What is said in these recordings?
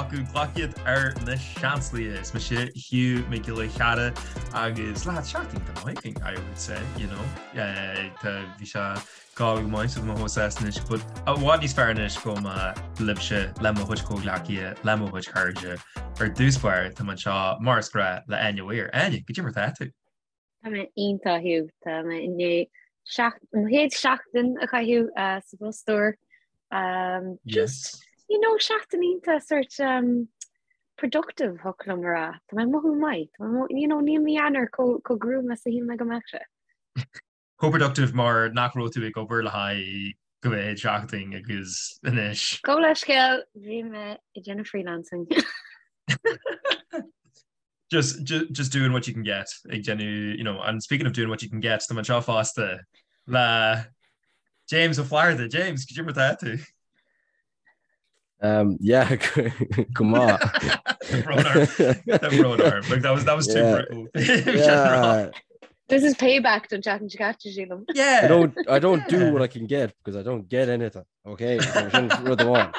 acu, glac iad ar na seansálaithe. Is mise Hugh Mac Giolla Chearra agus lads, seachtain iontach maith againn, I would say, you know. Tá, bhí sé go maith so tá mé chomh sásta anois, but i bhfad níos fearr anois go mbeidh libhse le mo chuid comhghleacaithe, le mo chuid cairde. Ar dtús báire, tá mé anseo mar is gnách le Áine Mhaoir. Áine, goidé mar tá tú? Tá mé iontach, Hugh. Tá mé i ndiaidh mo chéad seachtain a chaitheamh sa bpost úr. Just, you know, seachtain iontach sort um, productive thiocfadh liom a rá. Tá mé ag mothú maith. Tá mé, you know, níl mí Eanáir chomh gruama is a shíl mé go mbeadh sé. Chomh productive mar nach raibh tú ag obair le haghaidh go mhéad seachtain agus anois. Gabh leithscéal, bhí mé ag déanamh freelancing. Just, just, just doing what you can get ag déanamh, you know, and speaking of doing what you can get, tá mé anseo fosta le James Ó Flatharta. James, goidé mar tá tú? Um, yeah, go maith. Tá brón orm. Like, that was, that was too Yeah. brutal. Yeah. This is payback don tseachtain seo caite, sílim. Yeah. I don't I don't do Yeah. what I can get because I don't get anything. Okay, so sin rud amháin.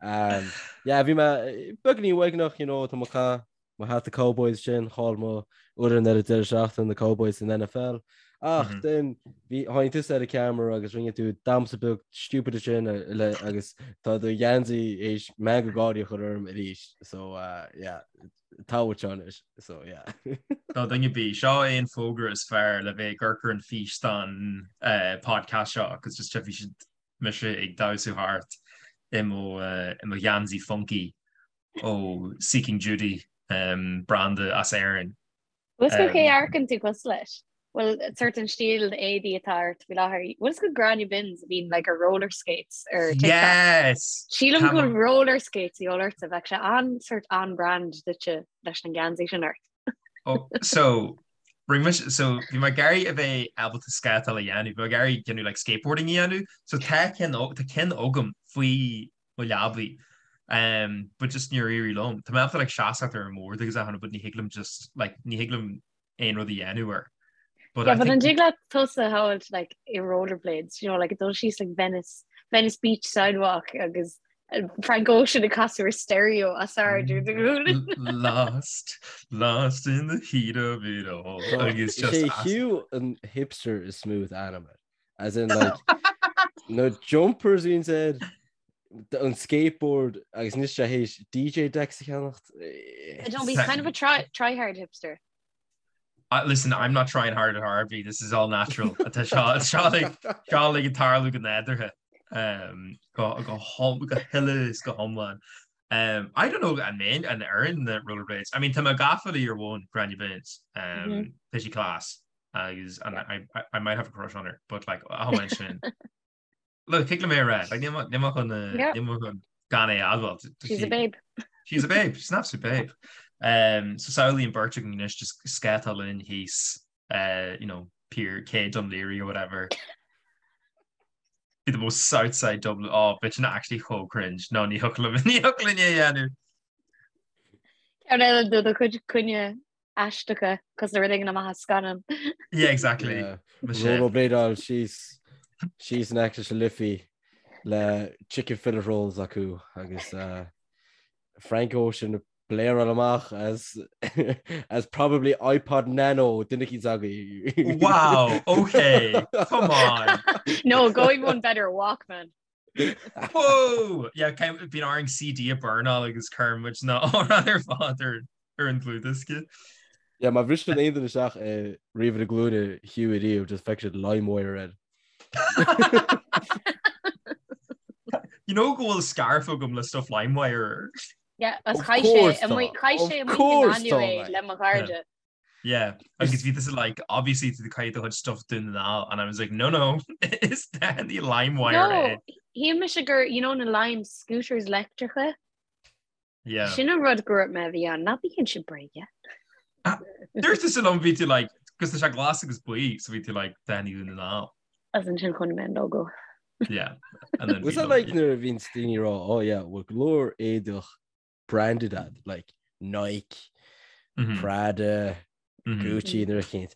Um, yeah, bhí mé beagáinín uaigneach, you know, tá mé ag caitheamh mo hata Cowboys sin, chaill mo fhoireann ar an deireadh seachtaine na Cowboys san NFL. Ach mm -hmm. then bhí tháinig tusa ar an camera agus rinne tú damhsa beag stupid sin le agus tá do gheansaí théis meangadh gáirí a chur orm arís. So uh, yeah, tá anois so yeah. Tá duine bí seo é an fógra is fearr le bheith ag amharc ar an físeán uh, podcast seo agus just bhí siad mise ag damhsú thart i mo uh, i mo gheansaí funky ó Seeking Judy um, branda as Éirinn. Bhfuil 's agat cé a amharcann tú cosúil leis? Bhuel, sort an stíl éadaí atá ort faoi láthair. Bhfuil 's agat Gráinne Binns a bhíonn like ar roller skates ar TikTok? Yes! Sílim go bhfuil roller skates a dhíobháil ortsa, bheadh sé an sort on-brand duitse leis an geansaí sin ort. Oh, so rinne mise so bhí mé ag iarraidh a bheith ábalta scátáil a dhéanamh, bhí mé ag iarraidh déanamh like skateboarding a dhéanamh, so tá ceann tá ceann agam faoi mo leabaidh um but just níor éirigh liom. Tá mé ábalta like seasamh ar an mbord agus achan rud but ní thig liom just like ní thig liom aon rud a dhéanamh air. But yeah, but an dtig leat tusa a shamhailt like i rollerblades, you know, like dul síos like Venice, Venice Beach sidewalk agus uh, Frank Ocean ag casadh ar stereo os ard ar do ghlúin. Lost, lost in the heat of it all. Agus just Is é Hugh an hipster is smooth animal. As in like na jumpers bhíonn air, an skateboard agus anois tá sé théis DJ decks a cheannacht. I don't be kind of a try try hard hipster. Uh, listen, I'm not trying hard at Harvey. This is all natural. Tá seo seo like seo like ag tarlú go nádúrtha. Um, go go hom go huile is go hiomlán. Um, I don't know an mbeinn an oireann na rollerblades. I mean, tá mé gafa le your one Gráinne Binns. Um, mm -hmm. Tá sí class. agus and I, I, I might have a crush on her, but like amháin sin. Look, thig liom é a rá, like níl mé chun níl mé chun gan é a admháil. She's a babe. She's a babe, she's an absolute babe. Um, so samhlaigh an bheirt againn anois just scátáil linn thíos, uh, you know, Pier Cé Dún Laoghaire or whatever. Be the most Southside Dublin. Oh, bheadh sin actually chomh cringe. No, ní thiocfadh liom ní thiocfadh linn é a dhéanamh. Ceann eile de do chuid coinne aisteacha cosúil le rud éigin amach as scannán. Yeah, exactly. Yeah. Rollerbladeáil síos síos in aice leis an Liffey le chicken fillet rolls acu agus uh, Frank Ocean ag blareáil amach as as probably iPod Nano duine eicínt agaibh. Wow, okay, come on. No, going one better, Walkman. Whoa! Yeah, bíonn orainn CD a burnáil agus cuireann muid na hamhráin ar fad ar ar an dlúthdhiosca. Yeah, má bhriseann aon duine isteach i ríomhaire glúine Hugh ariamh, just feicfidh siad LimeWire air. You know go bhfuil scarf agam le stuff LimeWire air. Yeah, as chaith sé amuigh chaith sé amuigh in Galway le mo chairde. Yeah, agus bhí tusa like, obviously tú ag caitheamh do chuid stuff Dún na nGall and I was like, no, no, is daithí LimeWire No, é. shíl mise gur, you know, na Lime scooters leictreacha. Yeah. Sin an rud go raibh mé a bhí ann, ná bíonn sin bréige. Dúirt tusa liom bhí tú like, cos tá sé glas agus buí, so bhí tú like, daithí Dún na nGall. As ansin chonaic mé an logo. Yeah. And then Was bhí that like logo. nuair a bhíonn daoine ag rá, oh yeah, bhfuil go leor éadach branded agat, like Nike, mm -hmm. Prada, mm -hmm. Gucci nuair a chéint.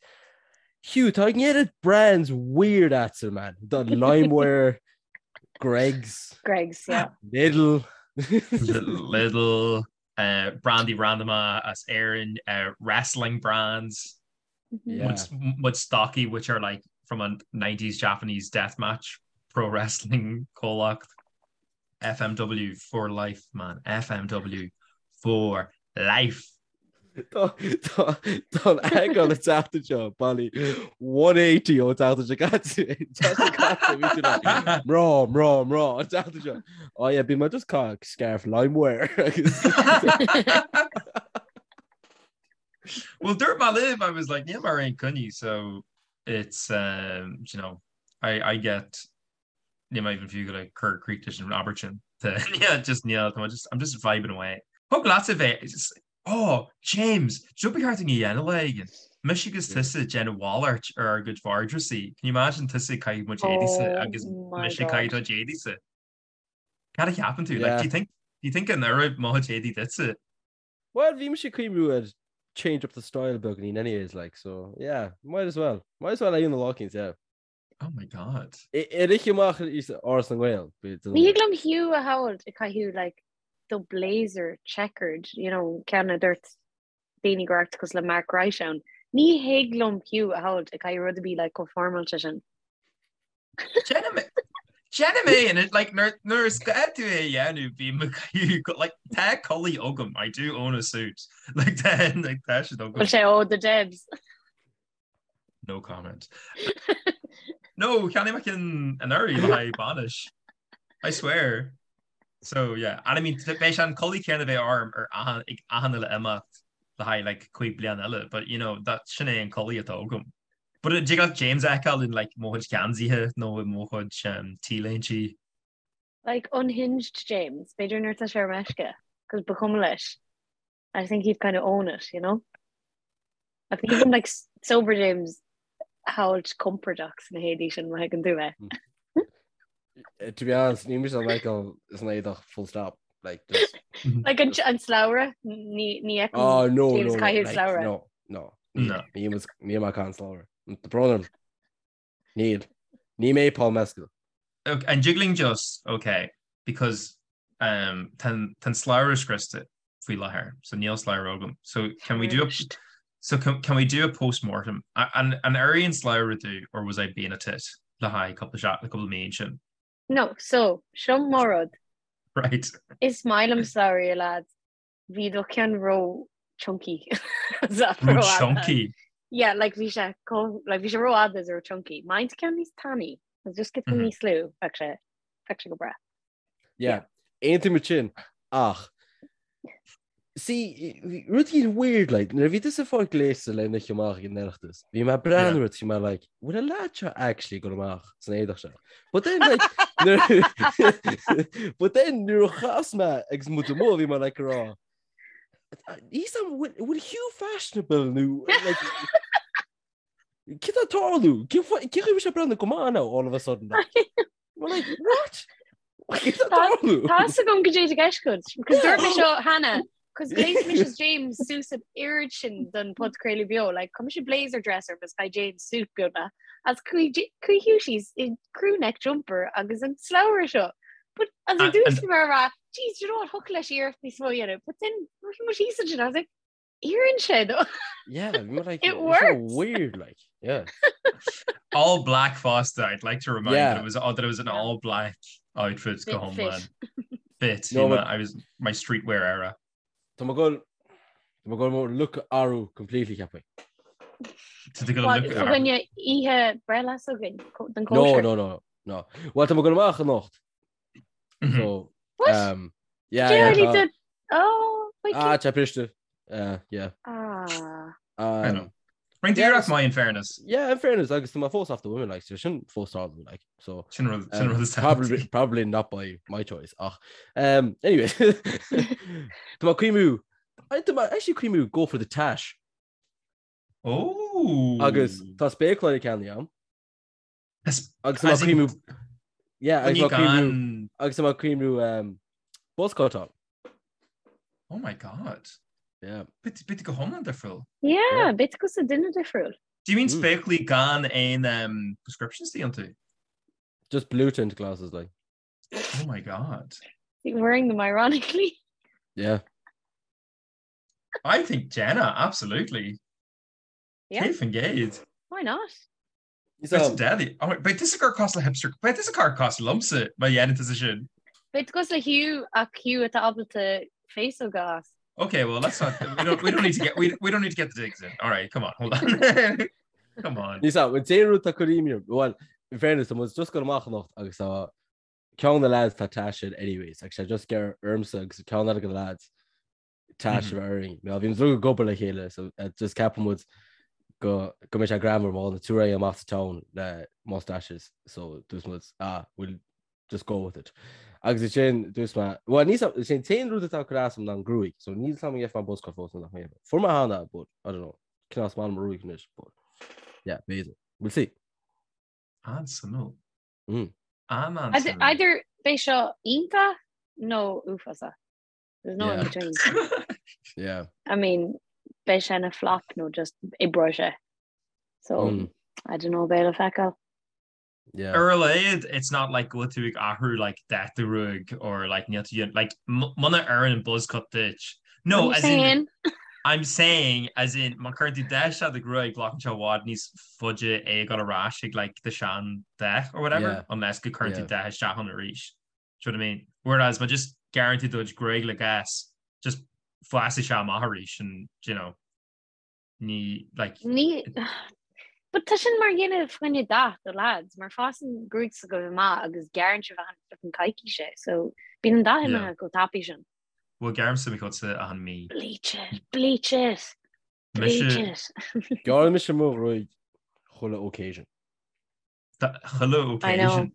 Hugh, tá an oiread brands weird agatsa, man. The LimeWire, Greggs, Greggs, yeah. Lidl. Lidl, uh, brandaí randama as Éirinn, uh, wrestling brands, Yeah. mo stocaí which are like from a 90s Japanese deathmatch pro wrestling comhlacht. FMW for life, man. FMW for life. Tá an eagrán an tseachtain seo bailí 180 ón tseachtain seo caite. Tseachtain caite bhí tú like, mná, mná, mná an tseachtain seo. Oh yeah, bhí mé just caitheamh scarf LimeWire agus Well, dúirt mé libh, I was like, níl mé ar aon coinní, so it's, um, you know, I, I get Níl mé even fiú ag cur críoch leis an abairt sin. Yeah, just níl, tá mé just, I'm just vibing away. Thig leatsa bheith, oh, James, seo ba cheart dúinn a dhéanamh lá éigin. Mise agus tusa ag déanamh mhalairt ar ár gcuid vardrúsaí. Can you imagine tusa ag caitheamh mo chuid éadaísa Oh agus my mise ag God. caitheamh do chuid éadaísa? Cad a cheapann tú? Like, Yeah. do you think, do you think an oirfidh mo chuid éadaí duitse? Well, bhí mise ag cuimhniú ar change up the style beagáinín anyways, like, so, yeah, might as well. Might as well a dhéanamh lá éicint, yeah. Oh my God. Ar oíche amach is Áras na nGael. Ní thig liom Hugh a shamhailt ag caitheamh like do blazer checkered, you know, ceann a dúirt daoine go raibh tú cosúil le Mark Wright ann. Ní thig liom Hugh a shamhailt ag caitheamh rud a bhí like chomh foirmeáilte sin. Déanaim é and it like nuair is gá tú é a dhéanamh bím ag caitheamh like tá culaith agam I do own a suit like tá like tá siad agam. Bhfuil sé ó the Debs. No comment. No, cheannaigh mé ceann anuraidh le haghaidh bainis. I swear. So yeah, and I mean beidh sé an culaith céanna a bheidh orm ar achan ag achan uile imeacht le haghaidh like 5 bliana eile, but you know that sin é an culaith atá agam. But dtig leat James a fheiceáil in like mo chuid geansaithe nó i mo chuid um, t-léintí. Like unhinged James, b'fhéidir nuair atá sé ar meisce, cos ba chuma leis. I think he'd kind of own it, you know? I think even like sober James a shamhailt compordach sna héadaí sin má thuigeann tú mé. Eh, to be honest, ní mise an Michael is an éadach full stop. Like, just... Like an, an slabhra ní ní mm-hmm. Oh, no, James no, no, caitheamh like, slabhra. no, no. No. Ní ní mar can slabhra. Tá brón orm. Níl. Ní mé Paul Mescal. Ok, an dtig linn just, ok, because um, tá an tá an slabhra scriosta faoi láthair, so níl slabhra agam. So can we do a, so can, can we do a post-mortem? An, an oir an slabhra domh or was I being a tit le haghaidh cúpla seach, le cúpla mí ansin? No, so, seo mo rud. Right. Is maith liom slabhraí, a lads. Bhí do cheann ró chunky. Ró chunky? Yeah, like bhí sé like bhí sé rófhada is ró chunky. Má tá ceann níos tanaí, just giota mm -hmm. níos lú, bheadh sé bheadh sé go breá. Yeah, aontaím sin ach See, rud éigin weird, like, nuair a bhí tusa ag fáil gléasta le n-oíche amach ag an Oireachtas, bhí mé ag breathnú ort, bhí mé like, bhfuil an lad seo actually ag dul amach san éadach seo? But then, like, nuair- but then nuair a chas mé agus muid amuigh, bhí mé like ag rá, He's a bhfuil Hugh fashionable nó like, Cad tá ag tarlú? Cén chaoi a bhfuil sé ag breathnú go maith now all of a sudden? Like, We're like, what? Cad tá ag tarlú? Tá fhios agam goidé atá i gceist agat, because dúirt mé seo cheana, cos ghléas mise is James suas an oiread sin don podchraoladh beo, like, chuir mise blazer dress orm is chaith James suit beagnach, agus chuaigh chuaigh Hugh síos i crew neck jumper agus an slabhra seo. But as I dúirt mé a rá, jeez, do you know what, thiocfadh leis iarracht níos mó a dhéanamh, but then bhí muid thíos ansin, I was like, Oireann sé dó. Yeah, bhí mé like, It it's so works. weird, like, yeah. All black fosta, I'd like to remind Yeah. that it was that it was an all black outfit Fit, go hiomlán. fit. Fit. No, Bhí mé- but- I was my streetwear era. Tá mé ag dul tá mé ag dul mo look a athrú completely ceapaim. Tá tú ag dul What, look so ar. choinne oíche breithlá s'againn, co- don No, cóisir? no, no, no. Well, tá mé ag dul amach anocht. Mhm. So, What? um, yeah, Did yeah, already tá- did- Oh, wait, Ah, tá briste. Uh, yeah. Ah. I know. Um, Rinne Yeah, tú iarracht maith in fairness. yeah, in fairness, agus tá mé fós after women, like, so sin fós tarlú, like, so. Sin rud sin Um, rud is probably, probably not by my choice. Ach, um, anyway, Tá mé ag cuimhniú tá mé actually ag cuimhniú go for the tash. Oh. Agus tá spéacláirí ceannaithe agam. Agus Agus tá mé ag cuimhniú yeah, agus Coinní tá mé ag cuimhniú gan agus tá mé ag cuimhniú um, buzz cut on. Oh my God. Yeah. Beidh tú go hiomlán difriúil. Yeah, beidh tú cosúil le duine difriúil. Do you mean Mm. spéaclaí gan aon um, prescriptions iontu? Just blue tint glasses like. Oh my God. Wearing them ironically. Yeah. I think Jenna, absolutely. Yeah. 100%. Why not? It's deadly. Oh, beidh tusa ag éirí cosúil le hipster, beidh tusa ag éirí cosúil liomsa má dhéanann tusa sin. Beidh tú cosúil le Hugh ach Hugh atá ábalta féasóg a fhás. Okay, well let's not we don't we don't need to get we, we don't need to get the digs in. All right, come on, hold on. come on. Ní sa, dé rud tá cuiríim, well, in fairness, tá muid just ag goil amach anocht agus tá ceann de na lads tá taise air anyways, agus sé just gur ormsa agus ceann eile de na lads taise mm -hmm. orainn. Bhí muid ag obair le chéile, so uh, just ceapann muid go go mbeidh sé greannmhar má na túra amach sa town le mustaches, so dúirt muid ah, we'll just go with it. Agus is sin dúirt mé, well ní sin t-aon rud atá ag cur as dom ná an gruaig, so níl a fhios agam an bhfaighidh mé buzz cut fós nó nach mbeidh. Fuair mé cheana, but I don't know, cineál is maith liom mo ghruaig anois, but yeah, b'fhéidir. We'll see. An-suimiúil. Mm. An-an-suimiúil. Either beidh seo iontach nó uafásach. There's no in Yeah. between. Yeah. I mean, beidh sé ina flop nó just oibreoidh sé. So, Mm. I don't know, beidh le feiceáil. Yeah. Ar a laghad, it's not like go bhfuil tú ag athrú like dath do ghruaig or like níl tú like muna oireann an buzz cut duit. No, What are as you in saying? I'm saying as in má chuireann tú dath isteach i do ghruaig glacann sé i bhfad níos faide é a ghoil ar ais ag like do sean dath or whatever Yeah. unless go cuireann tú Yeah. dath isteach ann arís. Do you know what I mean? Whereas má just gearrann tú do ghruaig le gas just fásfaidh sé amach arís and you know ní like Ní But tá sin mar dhéanamh fá choinne dath do lads, mar fásann gruaig s'agaibh amach agus gearrann sibh achan flippin coicís é, so bíonn an dath Yeah. imithe chomh tapaidh sin. Bhuel gearraimse mo chuidse achan mí. Bleach it, bleach it, bleach Mise it. Gearrann mise mo ghruaig chuile occasion. Chuile I know. occasion.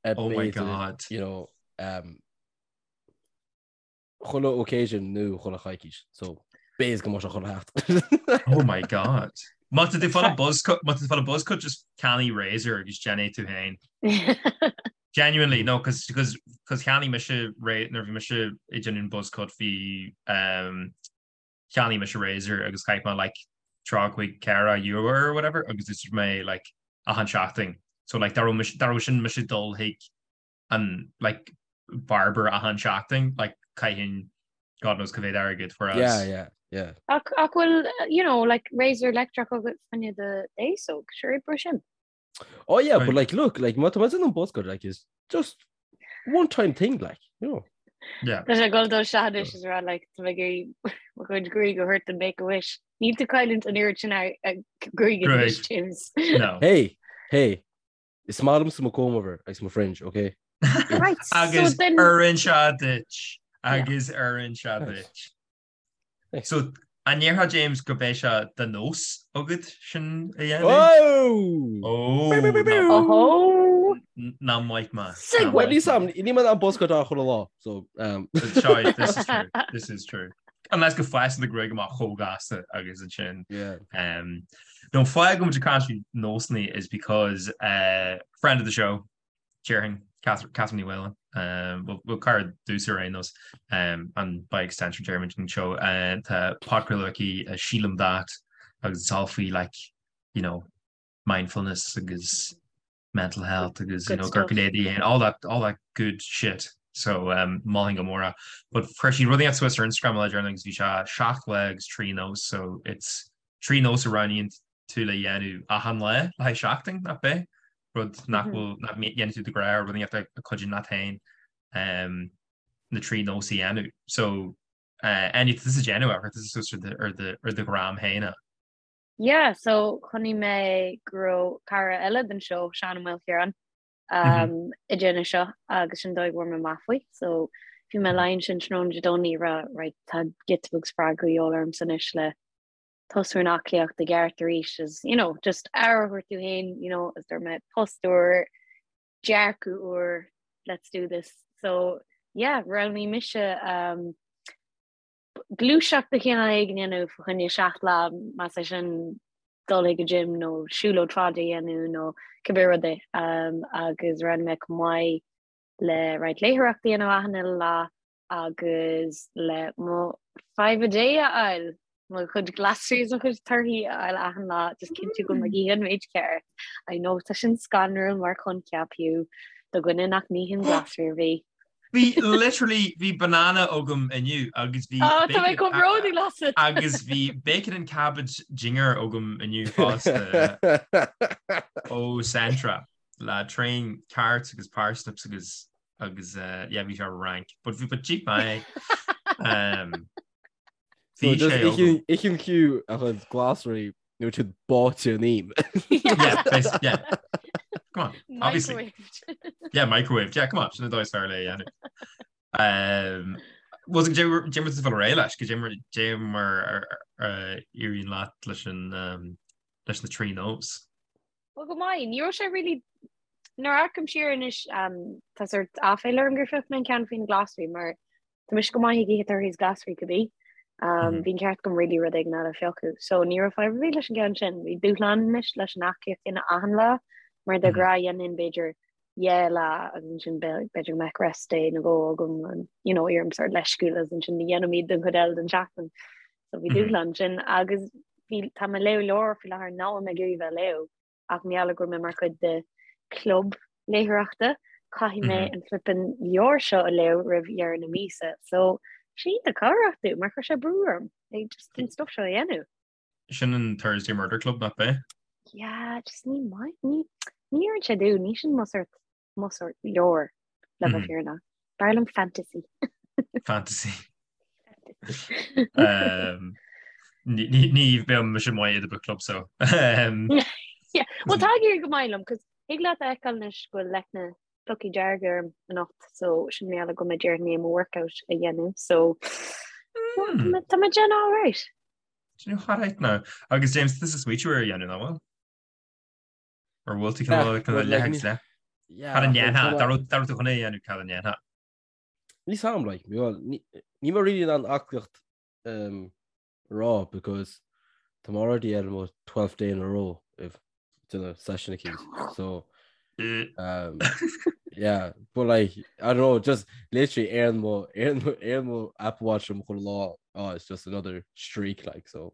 Oh my B'fhéidir, God. You know, um, chuile occasion nó chuile choicís, so b'fhéidir go mbeadh sé chuile sheachtain. Oh my God. Má tá tú ag fáil buzz cut, má tá tú ag fáil buzz cut just ceannaigh razor agus déan é tú féin. Genuinely, no, cos, cos, cos cheannaigh mise ra-, nuair a bhí mise ag déanamh an buzz cut bhí, um, cheannaigh mise razor agus chaith mé like 35 ceathracha euro or whatever agus d'úsáid mé like achan seachtain. So like dá raibh mise, dá raibh sin mise ag dul chuig an like barber achan seachtain like chaithfinn God knows cá mhéad airgead whereas Yeah, yeah, yeah. Ach ach bhfuil you know like razor leictreach agat fá choinne do fhéasóg, sure oibreoidh sin. Oh yeah, Right. but like look, like má tá mé ag déanamh an buzz cut like is just one time thing like, you know. Yeah. Tá sé ag dul dó seanadis is rá like tá mé ag iarraidh mo chuid gruaig a thabhairt don Make a Wish. Níl tú ag cailliúint an oiread sin gruaig anois, Gruaig. James. No. Hey, hey, Is maith liomsa mo comb over agus mo fringe, ok? Right, so Agus then oireann sé duit. Agus oireann sé Nice. duit. Nice. So an ndéarfá James go mbeidh sé de nós agat sin a dhéanamh? Oh! Ó, Biu, biu, biu, biu. Ohó! ná maith mé. Segue. Well, níl sam, ní mar an buzz cut á chuile lá, so um, Sorry, this is true. This is true. Unless go bhfásann do ghruaig amach chomh gasta agus ansin. yeah. Um, no fáth go bhfuil muid ag caint faoi nósanna is because uh, friend of the show, déarfainn, Catherine Ní Mhaoláin, um, well, well, cara domhsa ar aon nós, um, and by extension déarfainn an show, uh, tá podchraoladh aici uh, Sílim That agus it's all faoi like, you know, mindfulness agus mental health agus you Good know stuff. gurcadéidí and all that all that good shit. So um, mholfainn go mór é. But chuir sí rud inteacht suas ar Instagram le déanaí agus bhí sé 7 lá agus 3 nós so it's 3 nós a roghnaíonn tú le dhéanamh achan lá le haghaidh seachtain nach b'é rud nach Mhm. bhfuil nach ndéanann tú de ghnáth rud inteacht a chuidíonn leat féin um, na 3 nós a dhéanamh. So uh, Áine tá tusa ag déanamh é, chuir tusa suas ar do- ar do- ar do gram féin é. Yeah, so chonaic mé go raibh cara eile den seó, Seán Ó Maoilchiaráin, um, ag déanamh seo agus sin dóigh a bhfuair mé amach faoi. So bhí mé lying ansin tráthnóna Dé Domhnaigh ag rá, right, tá giota beag spreagadh de dhíobháil ormsa anois le tosú ar an aclaíocht i gceart arís is, you know, just aire a thabhairt domh féin, you know, is dúirt mé post úr, dearcadh úr, let's do this. So yeah, roghnaigh mise um, gluaiseacht de chineál éigin a dhéanamh fá choinne 7 lá, más é sin dul chuig an gym nó siúlóid fada a dhéanamh nó cibé rud é. Agus roghnaigh mé chomh maith le roinnt léitheoireachta a dhéanamh achan uile lá agus le mo five a day a fháil, mo chuid glasraí is mo chuid torthaí a fháil achan lá, just cinntiú go bhfuil mé ag ithe an méid ceart. I know tá sin scanrúil mar choincheap fiú do dhuine nach n-itheann glasraí ar bith. Bhí literally bhí banana agam inniu agus bhí Oh, tá mé chomh bródúil asat. agus bhí bacon and cabbage dinnéar agam inniu fosta ó Centra le tréan carrots agus parsnips agus agus uh, yeah, bhí sé rank, but bhí but cheap mé. Um, So bhí just sé agam. Itheann Hugh a chuid glasraí nuair atá siad báite in im. Yeah, bas- yeah. Come on, obviously. Microwaved. Yeah, microwave. Yeah, come on, sin an dóigh is fearr le é a dhéanamh. Um, was go dé mar bhfuil réidh leis, go dé mar éiríonn leat leis an um, leis na trí nós. Well go maith, ní raibh sé really nuair a amharcaim siar anois um, tá sort aiféala orm gur phioc mé an ceann faoi na glasraí mar Tá mise go maith ag ithe torthaí is glasraí cibé. Um, bhí an ceart agam really rud éigin eile a phiocadh. So ní raibh fadhb ar bith leis an gceann sin. Bhí dúshlán anois leis an aclaíocht a dhéanamh achan lá, mar de ghnáth dhéanfainn b'fhéidir dhá lá agus ansin b'fhéidir go mbeadh rest day nó dhó agam and, you know, éirim sort leisciúil agus ansin ní dhéanaim iad don chuid eile den tseachtain. So bhí dúshlán sin agus bhí tá mé ag léamh leabhar faoi láthair nach bhfuil mé ag iarraidh bheith ag léamh. ach mar gheall go bhfuil mé mar chuid de club léitheoireachta, caithfidh mé an flippin leabhar seo a léamh roimh dheireadh na míosa. So, sé iontach cabhrach domh mar chuir sé brú orm ag just an stuff seo a dhéanamh. Sin an Thursday Murder Club nach b'é? Yeah, just ní maith, ní ní oireann sé domh, ní sin mo sort mo sort leabhar le bheith fírinneach. B'fhearr liom fantasy. Fantasy. Um, ní bheadh mise maith i do book club so. Um, Yeah. Well tá ag éirí go maith liom, cos thig leat a fheiceáil anois go bhfuil leicne plucaí dearga orm anocht, so sin mar gheall go mbeidh i ndiaidh mo workout a dhéanamh, so Hmm. tá mé déanamh all right. Déanamh all right now. Agus James, this is sweet you ar dhéanamh ná bhfuil? Ar bhfuil tú cineál cineál leith agus leith? Cad a ndéanfá? Dá raibh dá raibh tú chun é a dhéanamh cad a ndéanfá? Níl a fhios a'm like, well, ní níl mé really in ann aclaíocht um, a rá because tá mé already ar mo 12th day in a row of déanamh session eicínt. So um, yeah, but like I don't know, just literally ar mo ar mo ar mo Apple Watch am chuile lá, oh, it's just another streak like so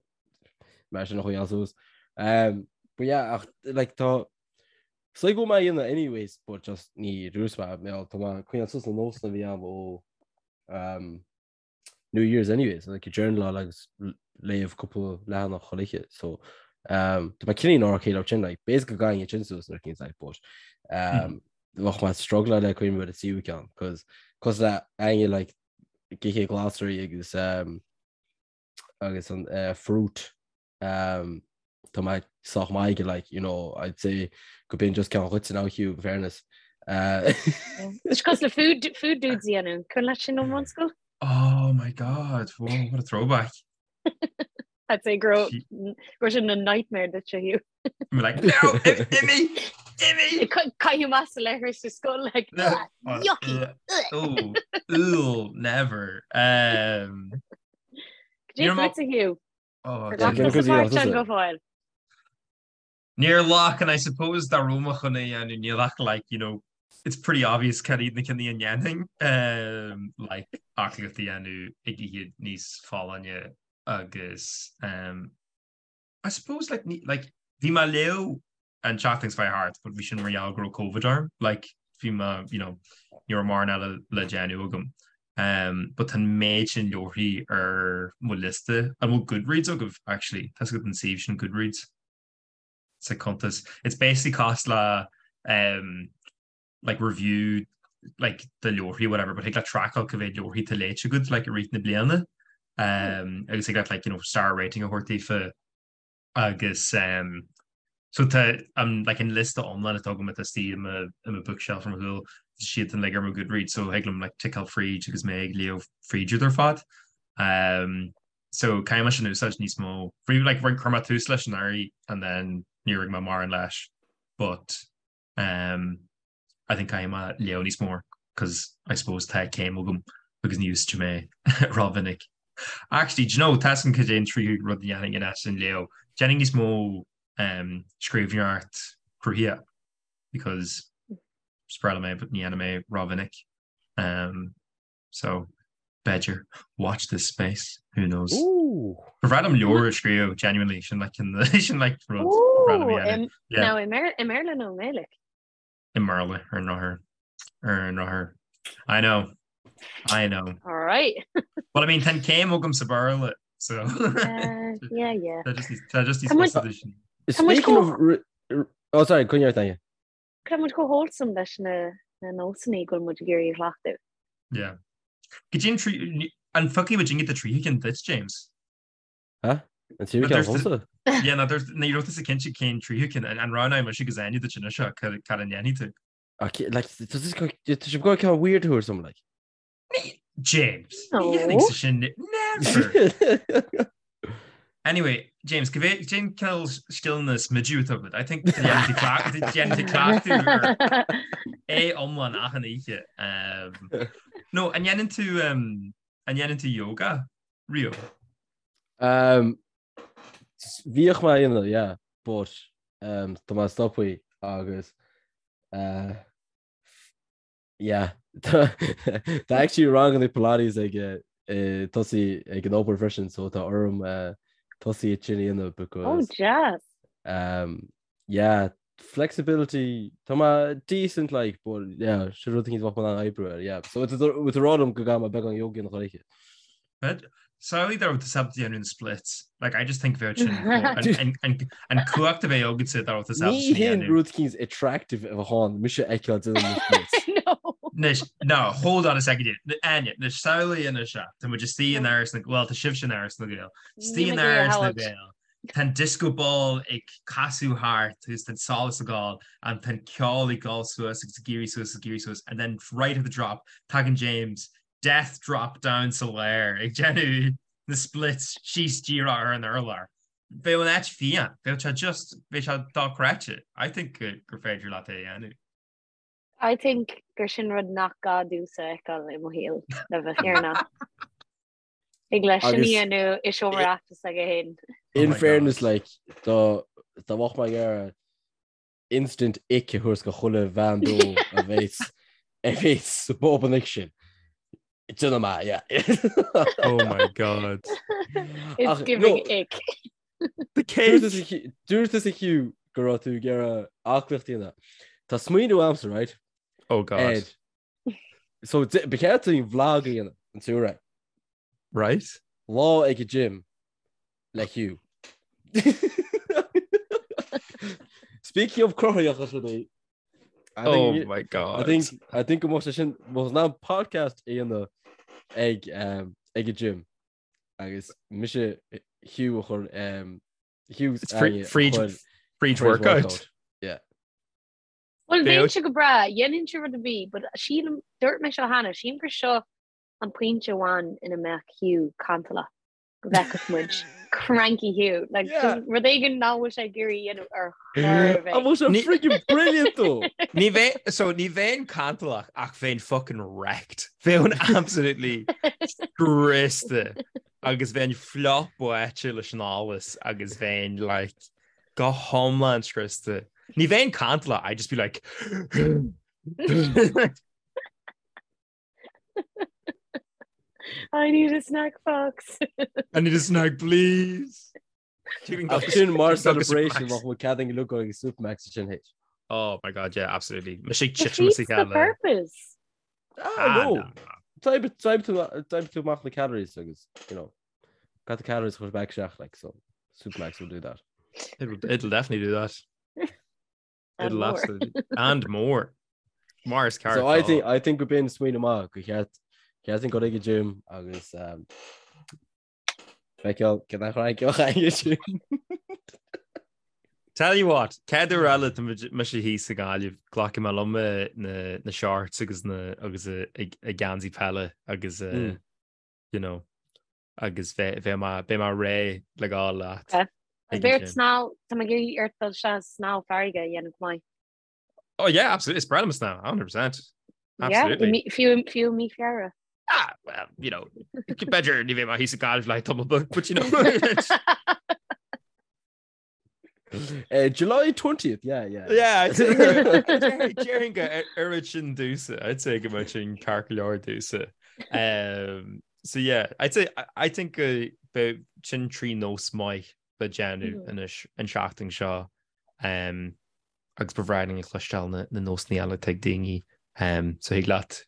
Mar sin a choinneáil suas. Um, but yeah, ach, like, tá So go mé dhéanamh anyways, but just ní rús mé, mé tá mé coinneáil suas na nósanna a bhí a'm ó um, New Year's anyways, like journaláil agus léamh cúpla leathanach chuile oíche, so um, tá mé cineál okay leis sin, like, basically go gcaithfinn sin suas nuair cinn like, but um, bheadh mé struggle le cuimhneamh ar an tríú ceann, cos cos le Áine like ag ithe glasraí agus um, agus an uh, fruit um, tá mé sách maith aige like, you know, I'd say go b'in just ceann dhuit now Hugh in fairness. Uh, Is cosúil le food, food dudes a dhéanamh. Cuimhin leat sin ón mbunscoil? Oh my god, whoa, what a throwback. I'd say go raibh go raibh sin a nightmare duit Hugh. I'm like, no, imigh, imigh! Caitheamh amach sa leithreas sa scoil like, No. "Ah, yucky. Oh, ooh, never. Um, Cad é fútsa Hugh? Oh, Ar Yeah, ghlac cén tusa cuid a páirt dhéanamh ann tusa? go fóill? Níor ghlac, and I suppose dá raibh mé chun é a dhéanamh, níl ach like, you know, it's pretty obvious cad iad na cinn a ndéanfainn, um, like aclaíocht a dhéanamh ag ithe níos folláine agus um, I suppose like ní like bhí mé ag léamh an tseachtain seo thart but bhí sin mar gheall go raibh Covid orm like bhí mé you know ní raibh mórán eile le déanamh agam um but tá an méid sin leabharthaí ar mo liosta an bhfuil Goodreads agaibh actually tá a fhios agat an suíomh sin Goodreads sa cuntas it's basically cosúil le um like review like de leabharthaí whatever but thig leat trackáil cá mhéad leabharthaí tá léite agat like i rith na bliana um, agus thig leat like you know star rating a thabhairt daofa agus um, so tá um, like an liosta iomlán atá agam atá istigh i mo i mo bookshelf ar mo chúl tá siad uilig ar mo Goodreads so thig liom like ticeáil fríd agus mé ag léamh fríd iad ar fad um, so caithfidh mé sin a úsáid níos mó Bhí like chuir mé tús leis anuraidh and then níor ag mé mórán leis but Um, I think caithfidh mé léamh níos mó cos I suppose tá céim agam agus ní úsáidim é rómhinic. Actually, do you know, tá a fhios agam cad é an tríú rud a dhéanfainn in áit an léamh. Déanfainn níos mó um, scríbhneoireacht cruthaitheach because is breá liom é but ní dhéanaim é rómhinic. Um, So, b'fhéidir, watch this space, who knows. Ooh. Ba bhreá liom leabhar a scríobh, genuinely, sin like in the, sin like rud ba bhreá liom a dhéanamh. Ooh, Yeah. now i mBéarla nó i nGaeilge? I mBéarla, ar an ndrochuair. Ar an ndrochuair. I know. I know. All right. Well, I mean, tá an céim agam sa Bhéarla, so. Yeah, yeah. Tá just tá just níos fusa duit. Speaking of Oh, sorry, coinnigh ort Áine. Tá muid chomh wholesome leis na na nósanna go bhfuil muid ag iarraidh a chleachtadh. Yeah. Go dtí an trí an phiocfaidh muid inge do tríú ceann duit, James? Huh? An tríú ceann domsa? Yeah, ná dúirt ní raibh tusa cinnte cén tríú ceann an roghnóidh mise agus Áine duit anois seo cad cad a ndéanfaidh tú? Okay, like, tá sibh ag goil ceann weird a thabhairt dom, like. James, ní dhéanfaidh sin never. Anyway, James, go bhfé cén cineál scileanna smidiú atá agat? I think déanfaidh tú cleachtadh ar é iomlán achan oíche. No, an ndéanann tú an ndéanann tú yoga riamh? Um, bhíodh mé á dhéanamh, yeah, but um, tá mé stoptha agus uh, Yeah. Tá actually ranganna Pilates ag eh, tosaí ag an obair freisin, so tá orm eh, tosaí é sin a dhéanamh because Oh, jazz. um, yeah, flexibility tá mé decent like, but yeah, sin rud éicint bheadh mé in ann oibriú air, yeah. So it's a rá liom go gcaithfidh mé beagán yoga a dhéanamh chuile oíche. But samhlaigh dá raibh tú ábalta déanamh na splits. Like, I just think bheadh sin an cumhacht a bheadh agatsa dá raibh tú ábalta Ní sin a hin dhéanamh. rud éicint attractive a bheadh ann mise a fheiceáil déanamh na splits. No. Anois, no, hold on a second here. Áine, anois samhlaigh anois seo. Tá muid istigh in Áras na well, tá sibhse in Áras na nGael. Istigh in Áras na Gael. Tá an disco ball ag casadh thart agus tá an solas ag gabháil and tá an ceol ag gabháil suas agus ag éirí suas agus ag éirí suas and then right at the drop tagann James death drop down sa lár ag déanamh na splits síos díreach ar an urlár. Bheadh an áit fiáin, bheadh sé just, bheadh sé dochreidte. I think gur féidir leat é a dhéanamh. I think gur sin rud nach gá domhsa a fheiceáil i mo shaol le bheith fírinneach. Thig leis sin a dhéanamh i seomra Oireachtais aige féin. In fairness like, dá mbeadh mé ag iarraidh instant ick a thabhairt go chuile bhean dó a bheas a bheas sa bpub an oíche sin. Déanfaidh mé, yeah. Oh my god. It's Ach, giving no. ick. The cake! Dúirt tusa Hugh go raibh tú ag iarraidh aclaíocht a dhéanamh. Tá smaoineamh agamsa, right? Oh god. Ed. So ba cheart dúinn vlog a dhéanamh an tSúra. Right? Lá ag an gym le Hugh. Speaking of cruthaitheach is rudaí. Oh my god. I think I think go mbeadh sé sin bheadh in ann podcast a dhéanamh ag um, ag an gym agus mise Hugh a chur um, Hugh It's free free free workout. Yeah. Well, bheinnse go breá, dhéanfainnse rud ar bith, but sílim, dúirt mé seo cheana, sílim gur seo an pointe amháin ina mbeadh Hugh cantalach, go bhfeicfeadh muid cranky Hugh, like Yeah. just rud éigin nach bhfuil sé ag iarraidh a dhéanamh ar chor ar bith. An bhfuil sé Ní- friggin brilliant though? Ní bheinn so ní bheinn cantalach ach bheinn fucking wrecked. Bheinn absolutely scriosta agus bheinn fliuch báite leis an allas agus bheinn like go hiomlán scriosta. Ní bheinn cantalach, I'd just be like I need a snack box. I need a snack, please. Ach sin mar celebration bheadh muid cead againn dul ag Supermacs sin théis. Oh my god, yeah, absolutely. Me sé Defeats the purpose. Ah, no. D'oibrigh tú amach na calories agus, you know, got the calories chur back isteach, like, so Supermacs will do that. It'll, it'll definitely do that. And It'll more. absolutely and more. Mar is ceart. So I think I think go b'in smaoineamh maith gur cheart cheart dúinn dul ag an gym agus um, feiceáil cén chraic a bheadh ag an gym. Tell you what, chéad uair eile tá mise thíos i nGaillimh, glacfaidh mé liom eh, na, na shorts agus na agus eh, ag ag geansaí peile agus eh, Mm. you know, agus beidh mé beidh mé réidh le gabháil leat. Okay. Ag Beidh ort an gym. snámh, tá mé ag iarraidh ort dul isteach snámh farraige a dhéanamh go maith. Oh yeah, absolutely. Is breá liom snámh, 100%. Yeah, Absolutely. mí- fiú fiú mí Feabhra. Ah, well, you know, b'fhéidir ní bheidh mé thíos i Gaillimh le tamall beag, but you know. Uh, July 20th, yeah, yeah. Yeah, I'd say déarfainn go oireann sin domhsa. I'd say go mbeadh sin ceart go leor domhsa. Um, so yeah, I'd say I, I think go beidh sin trí nós maith le déanamh Mhm. anois an seachtain seo. Um, agus ba bhreá linn a chloisteáil na, na nósanna eile atá ag daoine. Um, so thig leat.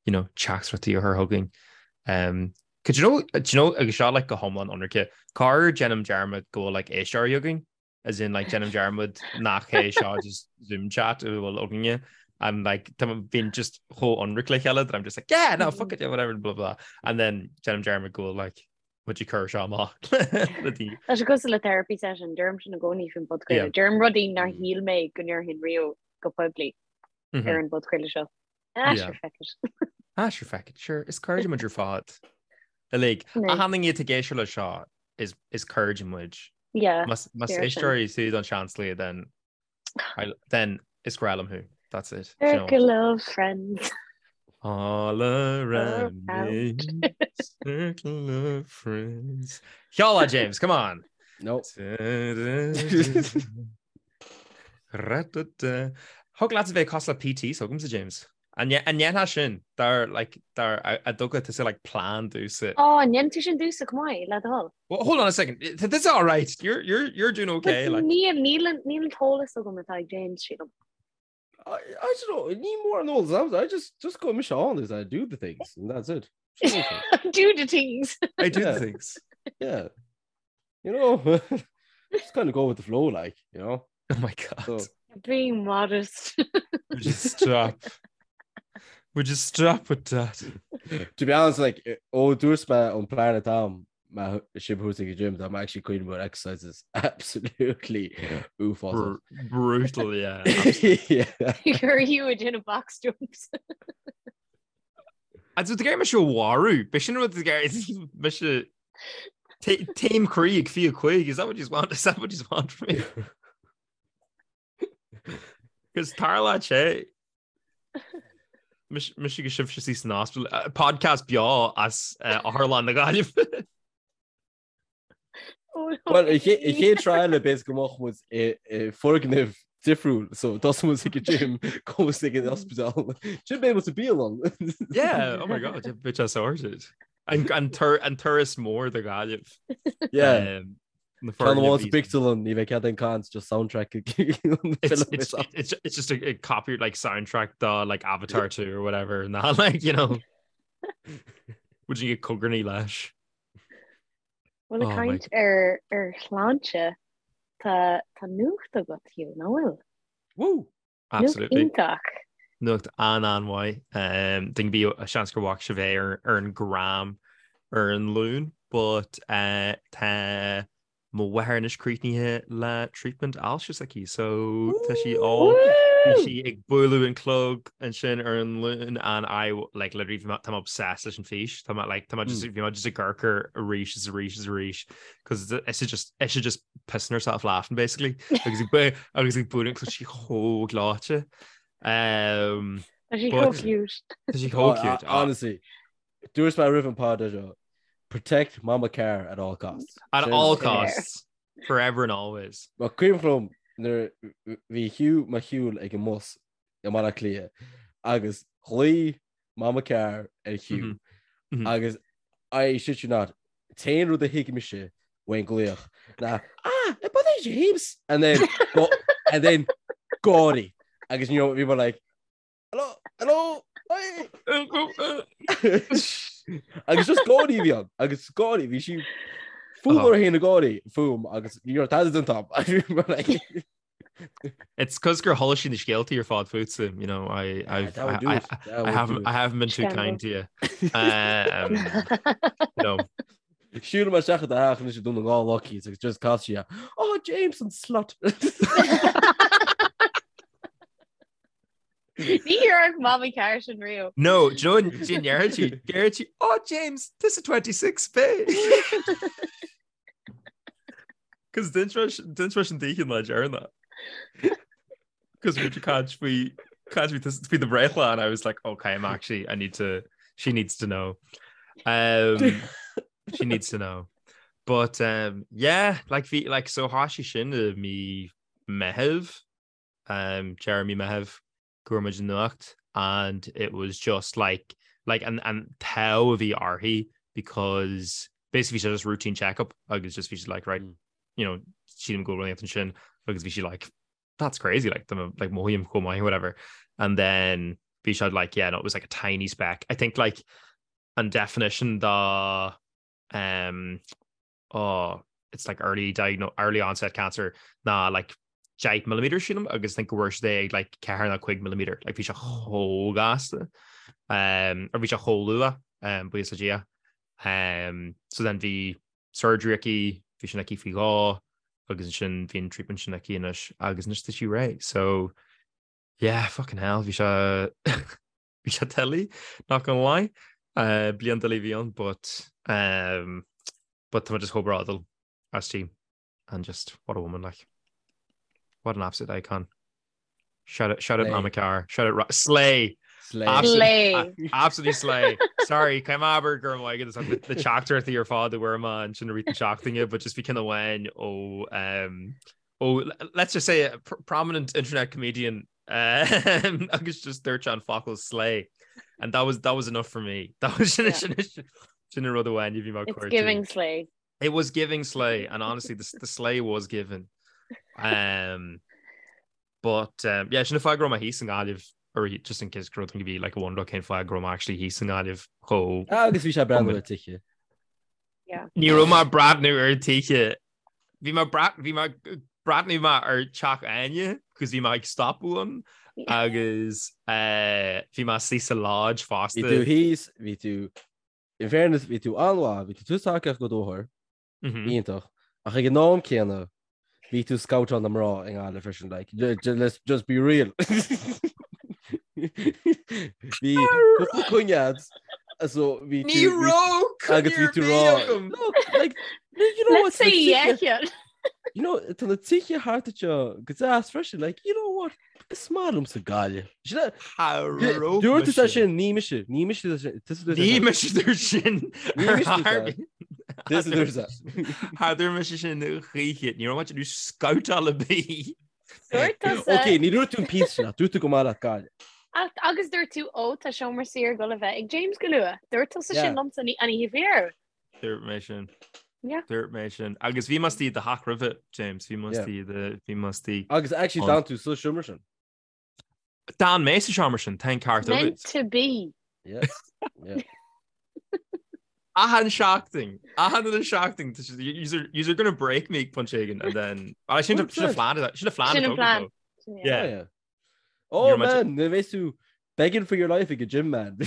you know, teachtaireachtaí a chur chugainn. Um, do you know, do you know, agus seo like go hiomlán ionraice, corruair déanaim dearmad go bhfuil like éisteoirí againn, as in like déanaim dearmad nach é seo just Zoom chat a bhfuil againne and like tá bíonn just chomh ionraic le chéile that I'm just like yeah no fuck it yeah whatever blah blah and then déanaim dearmad go bhfuil like muid ag cur seo amach le daoine. Tá sé cosúil le therapy session, deirim sin i gcónaí faoin bpodchraoladh. Deirim rudaí nár shíl mé go ndéarfainn riamh go poiblí ar an bpodchraoladh seo. Ah, sure feck it. Ah, sure feck it. Sure, is cairde muid ar fad. Uilig. Achan duine atá ag éisteacht le seo is is cairde muid. Yeah. Más más éisteoirí tú don seanslí then then is grá liom thú. That's it. Circle of friends. All around me, circle of friends. Ceol James, come on. No. Thig leat a bheith cosúil le PT s'agamsa James. An ndéanfá sin dar like dar a dtugadh tusa like plean domhsa? Ó, an ndéanann tú sin domhsa chomh maith, le do thoil. Well, hold on a second. This is all right. You're you're you're doing okay. Like. Níl níl níl an t-eolas agam atá ag James sílim. I, I don't know. Ní mór an eolas. I just just go mise on is I do the things and that's it. do the things. I do the things. Yeah. You know, just kind of go with the flow, like, you know. Oh my God. So, Being modest. Would you stop? Would you stop with that? To be honest, like, ó dúirt mé an plean atá agam má sibh thuas ag an gym, tá mé actually cuimhneamh ar exercises absolutely uafásach. Brutal, yeah. Yeah. You're you ag déanamh box jumps. Agus tú ag iarraidh mise a mharú, b'é sin rud ag iarraidh mise taom croí ag 25, is that what you want? Is that what you want from me? Cos tharla sé mise agus sibhse suí san ospidéal, podcast beo as Otharlann na Gaillimhe. Well, an chéad trial b'fhéidir go mbeadh muid i foirgneamh difriúil, so tosóidh muid ag an gym, gabhfaidh muid ag an ospidéal. Sin beidh muid sa bialann. Yeah, oh my god, beidh sé sorted. An, an, tur, an turas mór do Ghaillimh. Yeah. Um, na Ceann amháin foirgnimh sa bpictiúrlann, ní bheidh cead aon caint, just soundtrack. It's, it's, it's, it's just a, a copy like soundtrack do like Avatar 2 or whatever and that like you know would you get cogarnaí leis Bhuel ag caint ar ar shláinte tá tá nuacht agat Hugh, nach bhfuil? Woo! Nuacht Absolutely. iontach. Nuacht an-an-mhaith. Um, Ding bhí a seans gur bhfaca sibh é ar, ar an gram ar an Luan, but uh, tá Mo mháthair anois críochnaithe le treatment ailse s'aici so tá sí all bhí sí ag bualadh an clog ansin ar an Luan and I like literally bhí mé tá mé obsessed leis an fís tá mé like tá mé just bhí mé just ag amharc air arís is arís is arís cos is just is just pissing herself laughing basically agus ag agus ag bualadh an clog sí chomh gleoite. Um, Tá sí chomh cute. Tá sí chomh cute. Honestly, Dúirt mé roimh an pod seo, protect Mama Carr at all costs. At all costs. Forever and always. Mar cuimhin liom nuair bhí Hugh mar shiúl ag an mbus i mBaile Átha Cliath agus ghlaoigh Mama Carr ar Hugh agus I shit you not, t-aon rud a thuig mise ón nglaoch ná ah, but é James! And then, and then gáirí agus you know, bhí mé like Hello, hello, hi. Agus just gáirí a bhí ann, agus gáirí, bhí sí fuath ar na gáirí fúm agus ní raibh tada den top. It's cos gur chuala sí na scéaltaí ar fad fútsa, you know, I, I've, that would I, do I, it. That I would haven't, do it. I haven't been too Scandal. kind to you. Um, no. Siúil mar seach a ach is dún gá lucky agus just cás sí Oh James an slut. Ní dhéarfadh Mamaí Carr sin riamh. No, do you know what déarfaidh sí? Déarfaidh sí, oh James, this is 26 pay. Cos d'inis mé sin daoithi an lá deireanach. Cos bhí caint faoi caint faoi do bhreithlá and I was like, okay, I'm actually, I need to, she needs to know. Um, she needs to know. But um, yeah, like bhí, like so thosaigh sin i mí Meitheamh um, deireadh mí Meitheamh go raibh muid an nuacht and it was just like like an an t-ádh a bhí uirthi because basically bhí sé just routine checkup agus just bhí sí like right mm. you know sílim go bhfuil ansin agus bhí sí like that's crazy like the like mothaím chomh maith whatever and then. Bhí sé like yeah no it was like a tiny speck. I think like an definition de um oh it's like early diagno early onset cancer ná like 10 millimeter sílim agus think go bhfuair siad é ag like 4 nó 5 millimeter like bhí sé chomh gasta um or bhí sé chomh luath um buíochas le Dia um so then bhí surgery aici bhí sin aici faoi dhó agus ansin bhí an treatment sin aici anois agus anois tá sí réidh so yeah fucking hell bhí sé bhí sé doiligh not gonna lie uh, bliain doiligh a bhí ann but um, but tá just chomh bródúil aisti and just what a woman like what an absolute icon shout out shout out Mama Car shout out slay Slay. Absolutely, Slay. absolutely slay. Sorry, caithfidh mé a abair go raibh maith agat na teachtaireachtaí ar fad a bhfuair mé ansin i rith na seachtaine, but just bhí ceann amháin ó um, ó let's just say a pr prominent internet comedian um, agus just dúirt sé an focal slay and that was that was enough for me. That was sin sin an rud amháin a bhí mé It's giving slay. It was giving slay and honestly the, the slay was given. Um, but um, yeah, sin an fáth go raibh mé thíos i nGaillimh or just in case go raibh bhí like a wonder cén fáth go raibh mé actually thíos i nGaillimh chomh Agus bhí sé breathnú ar tithe. Ní raibh mé breathnú ar tithe Bhí mé bhí mé breathnú mé ar teach Áine cos bhí mé ag stopadh ann agus bhí mé istigh sa lodge fosta. Bhí tú thíos, bhí tú, in fairness, bhí tú an-mhaith, bhí tú tús tacaíocht go dóthair, iontach, ach ag an am céanna, bhí tú scoutáil na mná i nGaillimh freisin, like, let's just be real. Bhí cúpla coinne agat, so bhí tú... Ní raibh coinne ar bith agam! No, like, you know what? Let's say yeah. You know, tá na tithe thart anseo go deas freisin, like, you know what? Is maith liomsa Gaillimh. Dúirt tú sin, ní mise, ní mise Ní mise dúirt sin. Ní mise dúirt sin. Cha dúirt mise sin choíche, ní raibh mé ag déanamh scoutáil ar bith. Dúirt tusa. Ok, ní dúirt tú an píosa sin, ach dúirt tú go maith leat Gaillimh. Agus dúirt tú, ó, tá seomra saor ag dul a bheith ag James go luath. Dúirt tusa sin liomsa an oíche faoi. Dúirt mé sin. Yeah. Dúirt mé sin. Agus bhí mé istigh i do theach roimhe, James, bhí mé istigh i do, bhí mé istigh. Agus actually d'fhan tú sa seomra sin. D'fhan mé sa seomra sin, tá an ceart agat. Meant to be. Yeah. Yeah. Achan seachtain, achan uile seachtain, yous are, yous are gonna break me ag pointe éigin and then, ah, sin sin an phlean, sin an phlean Sin an plan. Yeah. Yeah. Oh You're much- man, ní bheidh tú begging for your life ag an gym man.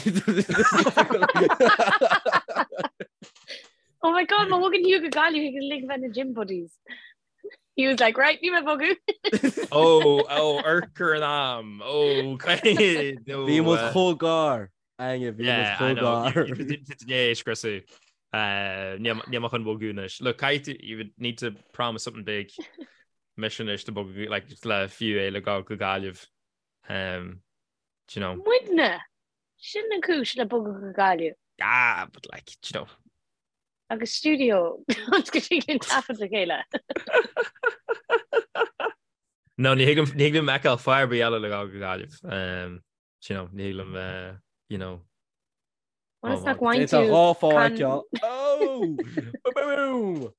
Oh my god, má bhogann Hugh go Gaillimh he can link bheith na gym buddies. He was like, right, ní mé bogadh. Oh, oh, urchar an am. Oh, Bhí muid chomh gar. Áine, bhí muid chomh gar. É scriosadh. Níl mé chun bogadh anois. Look, caithfidh tú, you would need to promise something big. Mise anois to bogadh, like, just le fiú é le gabháil go Gaillimh. Um, do you know. Muidne! Sin an cúis le bogadh go Gaillimh. Ah, but like, do you know. Agus stiúideo go dtig linn taifead le chéile. No, ní thig ní thig liom feiceáil fáth ar bith eile le gabháil go Gaillimh. Um, do you know, ní thig liom, uh, you know. Ionas nach bhfaigheann Tá tú dhá fáth can- feiceáil. Oh! Boom!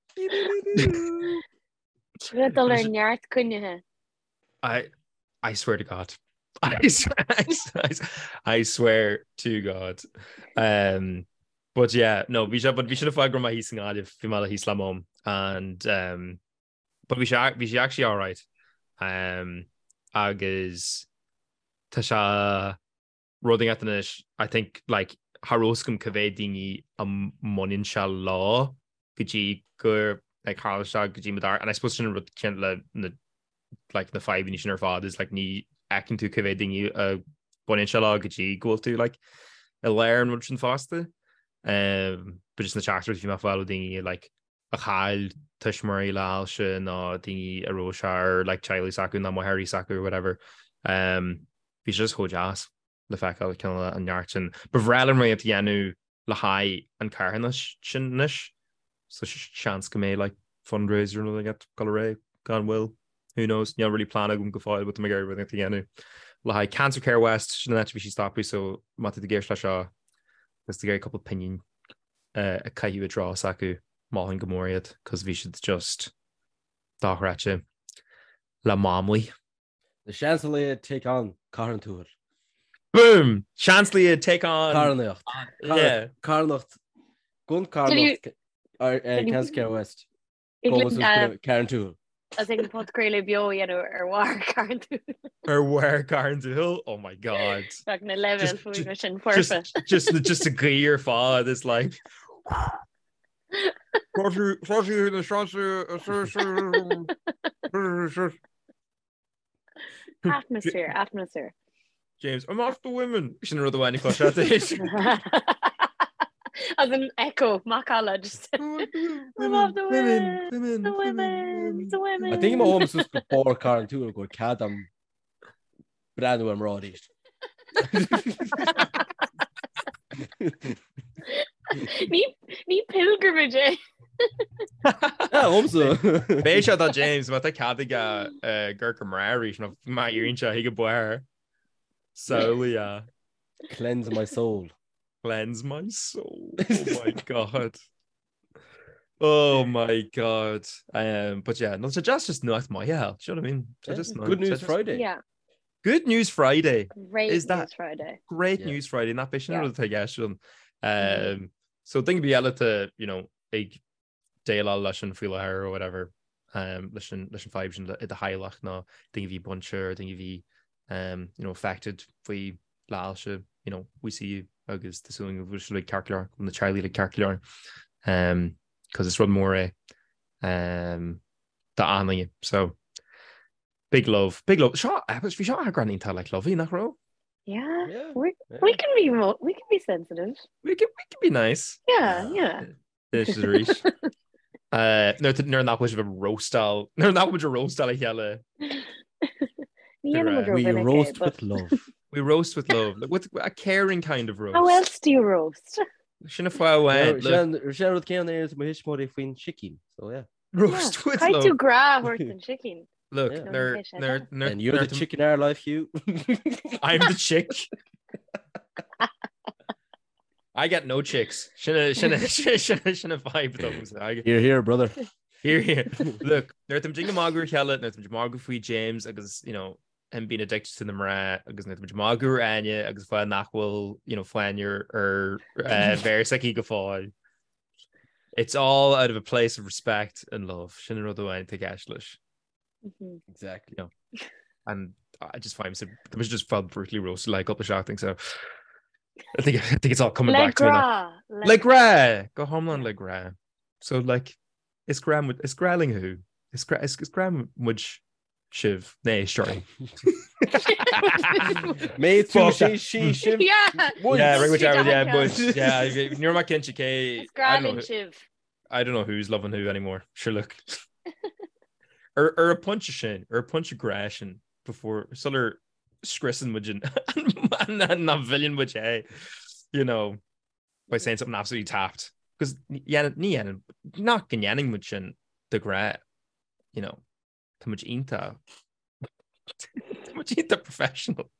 Le dul ar neart cruinnithe. I, I swear to God. I swear, I, I swear to God. Um, but yeah, no, bhí sé but bhí sin an fáth go raibh mé thíos i nGaillimh, bhí mé thíos le mom and um, but bhí sé bhí sé actually all right. Um, agus tá sé rud inteacht anois, I think like cha raibh fhios agam cá mhéad daoine a mbaineann sé leo go dtí gur like tharla sé go dtí mo dar and I suppose sin an rud céanna le na like na fadhbanna sin ar fad is like ní fheiceann tú cá mhéad daoine a bhaineann sé leo go dtí go bhfuil tú like i lár an rud sin fosta. Um, but just na teachtaireachtaí bhí mé ag fáil ó daoine like a chaill tuismitheoirí le hailse nó daoine a raibh sé ar like teaghlaigh s'acu nó máithreacha s'acu or whatever. Um, bhí sé just chomh deas le feiceáil cineál an neart sin. Ba bhreá liom rud a dhéanamh le haghaidh an carthanas sin anois, so seans go mbeidh like fundraiser nó rud ag dul ar aghaidh gan mhoill. Who knows? Níl really plean agam go fóill but tá mé ag iarraidh rud a dhéanamh le haghaidh Cancer Care West sin an áit a bhí sí ag stopadh so má tá tú ag éisteacht leis seo agus tú ag iarraidh cúpla pingin a chaitheamh i dtreo s'acu, mholfainn go mór iad cos bhí siad just dochreidte le Mamlaí. Na seans a laghad take on Cathair an Tuathail. Boom! Seansálaithe take on. Carthanacht. Yeah. Carthanacht. Gun carthanacht. Ceansair West. Carrauntoohil. As ag an podchraoladh beo a dhéanamh ar bharr Carrauntoohil. Ar bharr Carrauntoohil? Oh my god. Bheadh na leibhéil fuaime sin foirfe. Just just an ghaoth ar fad is like Atmosphere, atmosphere. James, I'm off the women. Sin rud amháin a chloisfeá. As an echo, macalla just. I'm off the women, women, the women, the women. I think má théim suas go barr Carrauntoohil go bhfuil cead a'm breathnú ar mná arís. Ní ní pilgrimage é. Agamsa. Beidh sé do James má tá cead aige amharc ar mná arís nó má iarrann sé chuig an barr. Samhlaigh é. Cleanse my soul. Cleanse my soul. Oh my god. Oh my god. Um, but yeah, no, so just just nuacht maith hell. Do you know what I mean? So Yeah. just Good news Friday. Yeah. Good News Friday. Great Is that News Friday. Great Yeah. News Friday nach b'shin Yeah. rud atá i gceist ann. Um, so duine ar bith eile atá, you know, ag déileáil leis an faoi láthair or whatever, um, leis an leis an fadhb sin i do theaghlach nó duine a bhí bainte or duine a bhí um, you know, affected faoi le hailse, you know, we see you agus tá súil go bhfuil sibh uilig ceart go leor, go bhfuil na teaghlaigh uilig ceart go leor. Um, cos is rud mór é um, d'achan duine. So Big love, big love. Seo, bhí seo eagrán iontach like lovey, nach raibh? Yeah. Yeah. We, yeah. we can be mo we can be sensitive. We can, we can be nice. Yeah, yeah. This is arís. Uh, nuair nach bhfuil sibh ag roastáil, nuair nach bhfuil roastáil a chéile. Ní dhéanaim We ró mhinic é, roast but with love. We roast with love, like, with a caring kind of roast. How else do you roast? Sin an fáth amháin, look, Sin rud céanna ar mo thuismitheoirí faoin sicín, so yeah. roast with Caithfidh tú love. grá a thabhairt don sicín. Look, Yeah. nuair, Okay, nuair, nuair, And you're the nuair- chick in our life, Hugh. I'm the chick. I get no chicks. Sin a- sin a- sin a- sin an vibe dom. I get- Here, here, brother. Here, here. Look, nuair táimid ag magadh ar a chéile, nuair táimid ag magadh faoi James agus, you know, him being addicted to na mná agus nuair táimid ag magadh ar Áine agus fáth nach bhfuil, you know, fáinne ar ar eh, mhéar s'aici go fóill. It's all out of a place of respect and love. Sin an rud amháin atá i gceist leis. Mhm. Exactly. And I just find so I was just felt brutally roasted like cúpla seachtain so I think I think it's all coming Le back to me now. grá. Le grá go hiomlán le grá. So like is grá is grá linn thú. Is grá is, is grá muid sibh né sorry. Mé tú Fuck sé sí sibh. Yeah. Yeah, right, whichever, yeah, Yeah. but yeah, níor ma cinnte cé Is I grá don't know linn who- sibh. I don't know who's loving who anymore. Sure look. Ar ar an bpointe sin, ar an bpointe grá sin before sular scriosann muid an nach bhfilleann muid é, you know, by saying something absolutely tapped. Because ní dhéanann nach go ndéanann muid sin de ghnáth, you know, tá muid iontach tá muid iontach professional.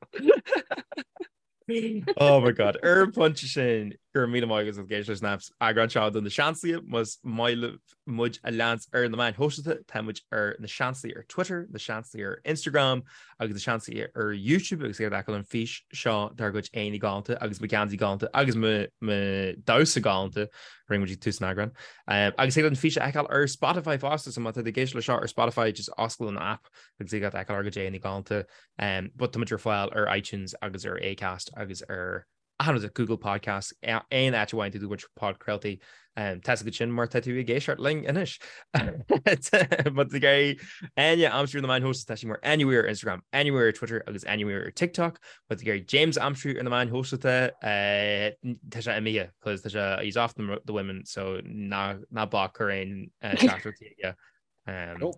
Oh my god, ar an bpointe sin go raibh míle maith agat as ucht éisteacht leis an eagrán seo de Na Seansálaithe más maith libh muid a leanstan ar na meáin shóisialta tá muid ar Na Seansálaithe ar Twitter, Na Seansálaithe ar Instagram agus Na Seansálaithe ar YouTube agus ag feiceáil an fís seo dár gcuid aghaidheanna galánta agus mo gheansaí galánta agus mo damhsa galánta a rinne muid ag tús an eagráin. Agus thig leat an fís a fheiceáil ar Spotify fosta so má tá tú ag éisteacht leis seo ar Spotify just oscail an app agus thig leat feiceáil ár gcuid aghaidheanna galánta. But tá muid ar fáil ar iTunes agus ar Acast agus ar achan rud, Google Podcasts, aon áit a bhfaigheann tú do chuid podchraoltaí. Tá a fhios agat sin mar tá tú ag éisteacht linn anois. Má tá tú ag iarraidh Áine a aimsiú ar na meáin shóisialta, tá sí mar Áine Weir ar Instagram, Áine Weir ar Twitter agus Áine Weir ar TikTok. Má tá tú ag iarraidh James a aimsiú ar na meáin shóisialta, tá sé imithe cos tá sé, he's off the women so ná bac cuir aon teachtaireachtaí aige.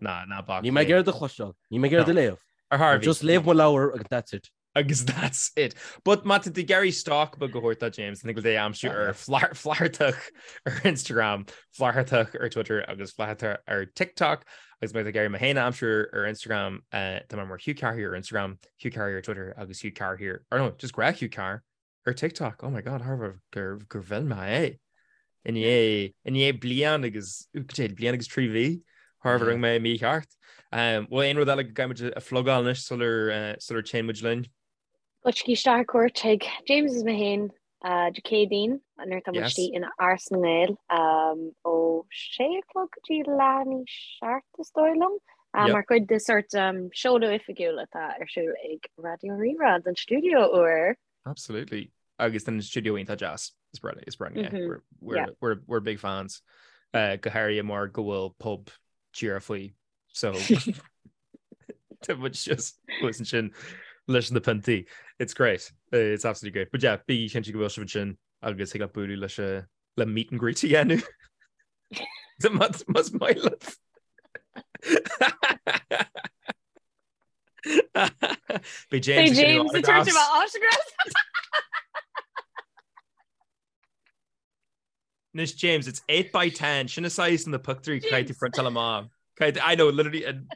Ná ná bac. Níl mé ag iarraidh do chloisteáil, níl mé ag iarraidh do léamh. Ar Harvey. Just léamh mo leabhar agus that's it. Agus that's it. But má tá tú ag iarraidh stalk beag a thabhairt do James, thig leat é a aimsiú ar Flathartach ar Instagram, Flathartach ar Twitter agus Flathartach ar TikTok. Agus má tá tú ag iarraidh mé féin a aimsiú ar Instagram, tá mé mar Hugh Carr here ar Instagram, Hugh Carr here ar Twitter agus Hugh Carr here, or no, just gnách Hugh Carr ar TikTok. Oh my God, thar gur gur mhill mé é. I ndiaidh i ndiaidh bliain agus bliain agus 3 mhí thar rinne mé mícheart. Bhfuil aon rud eile go gcaithfidh muid a phlugáil anois sular sular téann muid linn? Goitsigí isteach ar cuairt chuig James is mé féin Dé Céadaoin nuair atá muid istigh in Áras na nGael ó sé a chlog go dtí leath i ndiaidh 7 is dóigh liom mar chuid de sort seoladh oifigiúil atá ar siúl ag Raidió Rí-Rá don stiúideo úr. Absolutely. Agus don stiúideo iontach deas. Is breá is breá yeah. We're, we're, yeah. we're, we're big fans. Uh, go háirithe mar go bhfuil pub díreach faoi So tá muid just thuas ansin leis na piontaí. It's great. Uh, it's absolutely great. But yeah, bí cinnte go bhfuil sibh ansin agus thig leat bualadh leis a le meet and greet a dhéanamh. Más maith leat. Beidh James Beidh James ag tabhairt autographs. Anois James, it's 8 by 10, sin an size na pictiúirí caithfidh tú printáil amach. Caithfidh, I know, literally an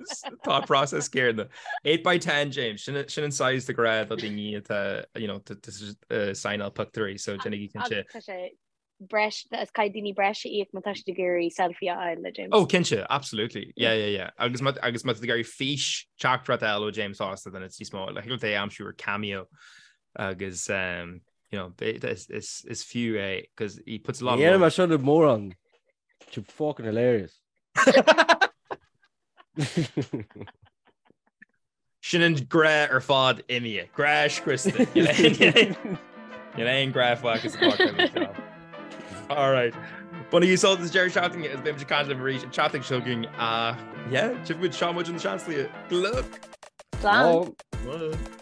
thought process céanna. 8 by 10, James, sin sin an size de ghnáth do daoine atá, you know, to, to uh, signáil pictiúirí, so déanaigí cinnte. Tá sé breis, is caithfidh daoine breis a íoc má tá siad ag iarraidh selfie a fháil le James. Oh, cinnte, absolutely. Yeah, yeah, yeah. Agus má agus má tá tú ag iarraidh fís teachtaireacht a fháil ó James fosta, then it's níos mó, like, thig leat é a aimsiú ar Cameo agus um, you know, is, is, is fiú é, because he puts a lot of Yeah, mar seo mórán. You're fucking hilarious. Sin an grá ar fad imithe. Grá scriosta. Níl aon grá fágtha sa pháirc. All right. Bainigí sult as deireadh seachtaine is beimid ag caint libh arís an tseachtain seo chugainn. Yeah, tchífidh muid seo muid an seanslí. Good luck. Slán. Slán.